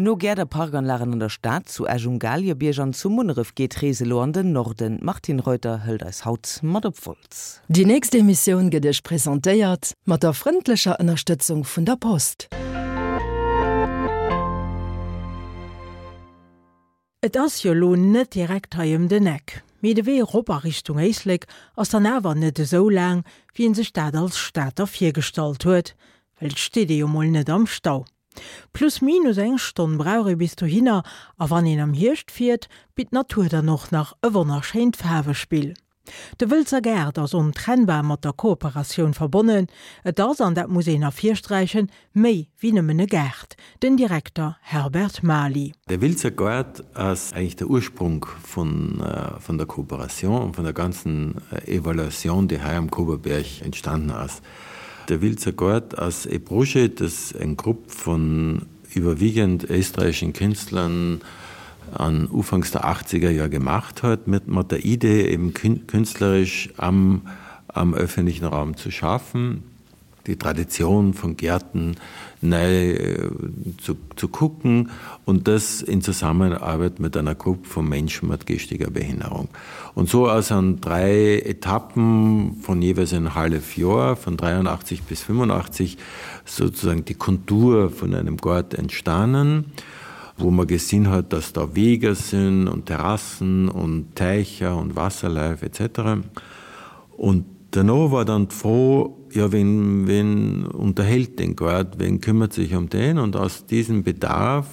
No Gäert a Parkanlagen an der Stad, zu Esch um Galiebierg an zu Munneref geet d'Rees elo an den Norden. D'Martine Reuter hëlt eis haut mat op Wolz. Déi nächst Emissioun gëtt Iech presentéiert mat der frëndlecher Ënnerstëtzung vun der Post. Et ass jo lo net direkt hei ëm den Eck, mee de Wee erop a Richtung Éislek ass dann awer net esou laang, wéi een sech dat als Stater virgestallt huet, well et steet ee jo mol net am Stau. Plus minus eng Stonn brauch ee bis dohinner a wann een am Hierscht fiert, bitt d'Natur dann och nach e wonnerschéint Faarwespill. De Wëlzer Gaart ass ontrennbar mat der Kooperatioun verbonnen. Et ass, an dat muss een ervirsträichen, méi wéi nëmmen e Gaart. Den Direkter Herbert Maly. Der Wiltzer Gaart ass eigentlich der Ursprung vun vun der Kooperation und vun der ganzen Evaluation, déi hei am Koberberg entstanden ass. Der Wiltzer Gaart ass e Projet, das eng Grupp vun überwiegend österreichischen Künstlern an ufanks der 80er Joer gemacht huet, mit mat der Idee eben künstlerisch am am öffentlichen Raum zu schaffen, die Tradition von Gärten nei zu zu kucken und das in Zusammenarbeit mit einer Gruppe von Menschen mit geistiger Behinderung. Und so ass an 3 Etappen von jeweils ein hallef Joer, von 83 bis 85, sozusagen die Kontur von einem Gaart entstanen, wo man gesinn huet, dass da Weger sinn und Terrassen und Teicher und Wasserläuf etc. Und derno war dann d'Fro, ja wen, wen unterhält den Gaart, wen kümmert sich um den? Und aus diesem Bedarf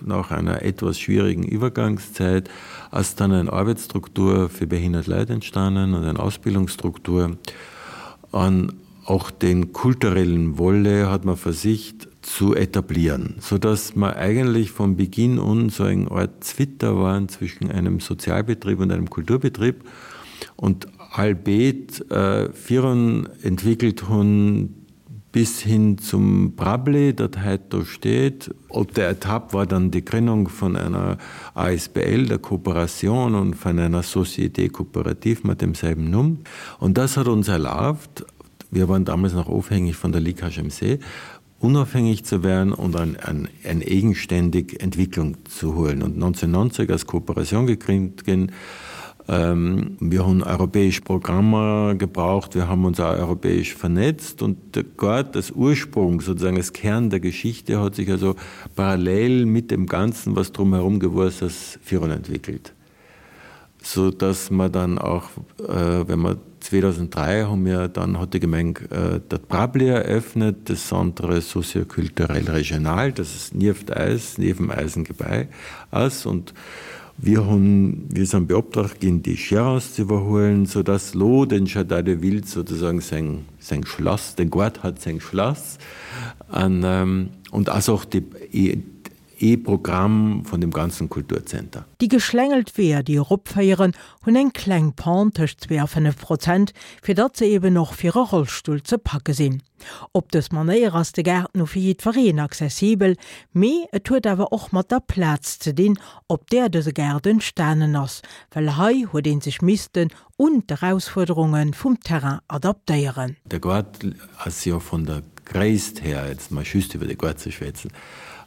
nach einer etwas schwierigen Übergangszeit ass dann eng Arbeitsstruktur fir behindert Leit entstanden und eng Ausbildungsstruktur. An och den kulturellen Volet hat man versicht zu etablieren, so dass mer eigentlich von Beginn un so eng Art Zwitter waren zwischen einem Sozialbetrieb und einem Kulturbetrieb und allbeet virun entwickelt hunn bis hin zum Brabli, dat heit do steet. Op der Etapp war dann die Gründung von einer ASBL, der Kooperation und von einer Société coopérative mat demselben Numm. Und das hat uns erlaubt, wir waren damals noch ofhängig von der Ligue HMC, unabhängig zu werden und ein, ein, ein eigenständig Entwicklung zu holen. Und 1990 als Kooperation gegründet ginn. Wir hunn europäesch Programmer gebraucht, wir haben uns auch europäesch vernetzt und Gott, das Ursprung, sozusagen das Kern der Geschichte hat sich also parallel mit dem Ganzen, was drumherum gewuss ass, virun entwickelt. So dass mer dann auch, wenn mer 2003 hu mir dann, hat déi Gemeng dat Brabli eröffnet, das Centre socio-culturel régional, das es nieft eis, niewem eisem Gebai ass und Wir hunn, wir sind beoptragt ginn, déi Gérance ze iwwerhuelen, soudass lo den Jardin de Ville sozusagen seng, seng Schlass, den Goart hat seng Schlass an, und ass och de, ee Programm vun dem ganzen Kulturzenter. Déi geschlängelt Weeër, déi eropféieren, hunn eng kleng Pente tëscht 2 a 5 Prozent, fir datt se eben och fir e Rollstull ze packe sinn. Op dës Manéier ass de Gaart nu fir jiddwereen accessibel, mee et huet awer och mat der Plaz ze dinn, op där dëse Gaart entstanen ass, well hei huet ee sech missten un d'Erausfuerderunge vum Terrain adaptéieren. De Gaart ass jo vun der Gréisst her, jetzt mol just iwwer de Gaart ze schwätzen,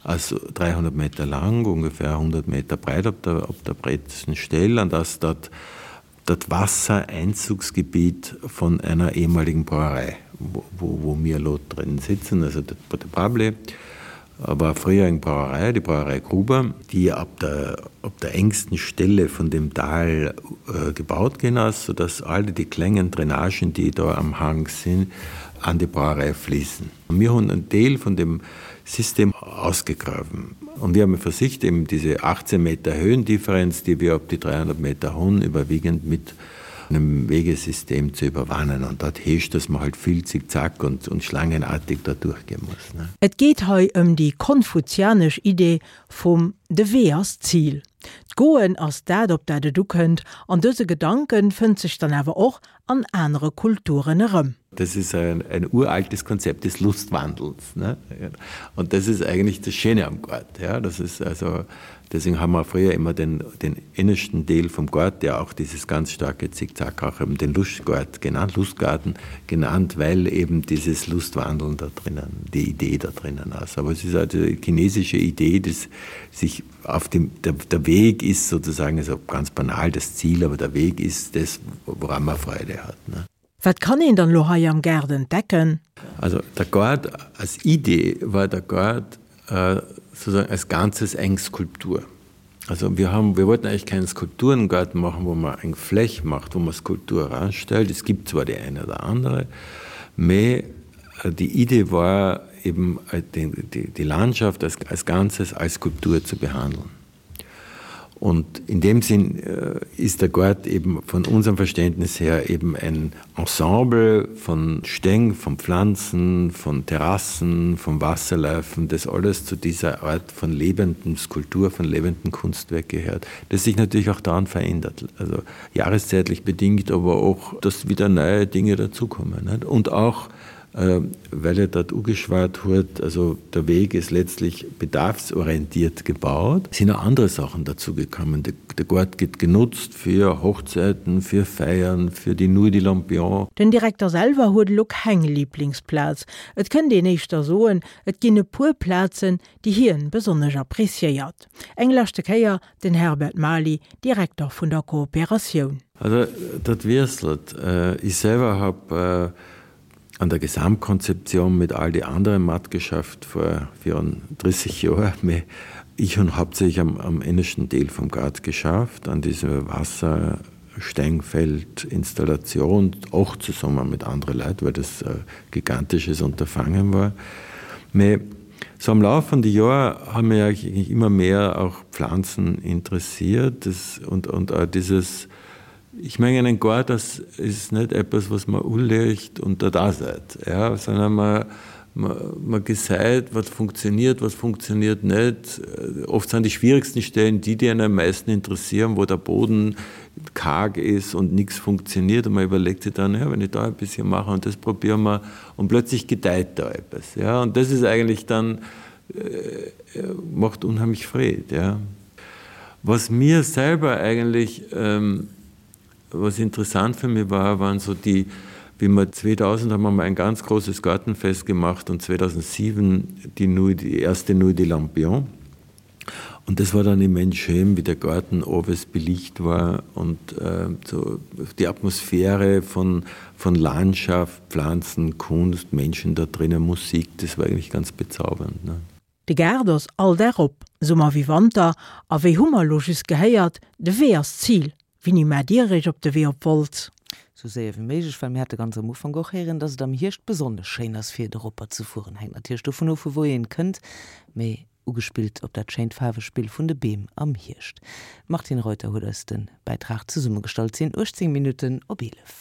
ass 300 Meter laang, ongefähr 100 Meter breit op der op der breetsten Stell an ass dat dat Wassereinzugsgebiet von einer ehemaligen Brauerei, wo, wo mir elo drin sitzen, also de Brable war früher eng Brauerei, die Brauerei Gruber, die ab der, op der engsten Stelle von dem Tal gebaut ginn ass, sodass alle die klengen Drainagen, déi do am Hang sinn, an die Brauerei fließen. Mir hunn en Deel von dem System ausgegraben und wir haben versicht, eben diese 18 Meter Höhendifferenz, die wir op die 300 Meter hunn, überwiegend mit einem Wegesystem zu überwannen. Und dat heescht, dass man halt vill zickzack und, und schlangenartig da durchgehen muss, ne. Et geet hei ëm déi konfuzianesch Idee vum De Wee ass d'Zil. D'Goen ass dat, op dat et ukënnt, an dëse Gedanken fënnt sech dann awer och an anere Kulturen erëm. Das ist ein, ein uraltes Konzept des Lustwandels. Ne? Und das ist eigentlich das Schöne am Gott. Ja? Das ist also, deswegen haben wir früher immer den, den innersten Teil vom Gott, der auch dieses ganz starke Zickzack auch eben den Lustgott genannt, Lustgarten genannt, weil eben dieses Lustwandeln da drinnen, die Idee da drinnen ist. Aber es ist also die chinesische Idee, dass sich auf dem, der, der Weg ist sozusagen also ganz banal das Ziel, aber der Weg ist das, woran man Freude hat. Ne? Wat kann een dann elo hei am Gaart entdecken? Also der Gaart als Idee war der Gaart äh, sozusagen als Ganzes eng Skulptur. Also wir haben, wir wollten eigentlich keinen Skulpturengarten machen, wo man eng Fläch macht, wo man Skulptur ranstellt. Es gibt zwar die eine oder andere, mee die Idee war eben äh, die, die, die Landschaft als, als Ganzes als Skulptur zu behandeln. Und in dem Sinn äh, ist der Gurt eben von unserem Verständnis her eben ein Ensemble von Stäng, von Pflanzen, von Terrassen, von Wasserläufen, das alles zu dieser Art von lebenden Skulptur, von lebenden Kunstwerk gehört, das sich natürlich auch daran verändert. Also jahreszeitlich bedingt, aber auch, dass wieder neue Dinge dazukommen. Nicht? Und auch, Äh, weil er dort ugeschwart huet, also der Weg ist letztlich bedarfsorientiert gebaut, sind auch andere Sachen dazu gekommen. Der, der Gurt gëtt genutzt fir Hochzeiten, fir Feiern, fir die Nuit de Lampion. Den Direkter selwer huet elo keng Liblingsplaz. Et kënnt een éischter soen, et ginn e puer Plazen, déi hien besonnesch appréciéiert. Eng leschte Kéier den Herbert Maly, Direkter vun der Kooperatioun. Also dat wiesselt. Ech selwer hab an der Gesamtkonzeption mit all die anderen matgeschafft vor 34 Joer, mee ich hunn hauptsächlich am, am innersten Deel vum Gaart geschafft, an dieser Wasserstengfeld-Installation, och zesumme mit andere Leit, well das e gigantisches Unterfangen war. Mee so am Lauf von die Joer hu mir eigentlich immer mehr auch Pflanzen interessiert das, und, und auch dieses, Ich mengen en Goart ass is net eppes was mer uleegt und dat ass et, ja, sondern mer mer gesäit wat funktioniert, wat funktioniert net. Oft sind die schwierigsten Stellen die, die einen am meisten interessieren, wo der Boden karg ist und nix funktioniert und man überlegt sich dann, ja, wenn ich da ein bisschen mache und das probieren wir und plötzlich gedeiht da etwas, ja, und das ist eigentlich dann äh, macht unheimlich Freed, ja. Was mir selber eigentlich ähm, was interessant für mich war, waren so die, wie wir 2000 haben wir mal ein ganz großes Gartenfest gemacht und 2007 die, Nuit, die erste Nuit de Lampion. Und das war dann immens schön, wie der Garten oves belicht war und äh, so die Atmosphäre von, von Landschaft, Pflanzen, Kunst, Menschen da drinnen, Musik, das war eigentlich ganz bezaubernd. Ne? De Gaart ass all Dag op, Summer wéi Wanter, a wéi hu mer elo just gehéiert, de Wee ass d'Zil. Wéini maacht Dir Iech op de Wee op Wolz? Sou séier wéi méiglech, well mir hate ganz am Ufank och héieren, dass et am Hierscht besonnesch schéin ass fir doropper ze fueren. Hänkt natierlech dovun of, vu wou een kënnt, mee ugespillt op dat schéint Faarwespill vun de Beem am Hierscht. D'Martine Reuter huet eis de Bäitrag zesummegestallt. Et sinn 18 Minutten op 11.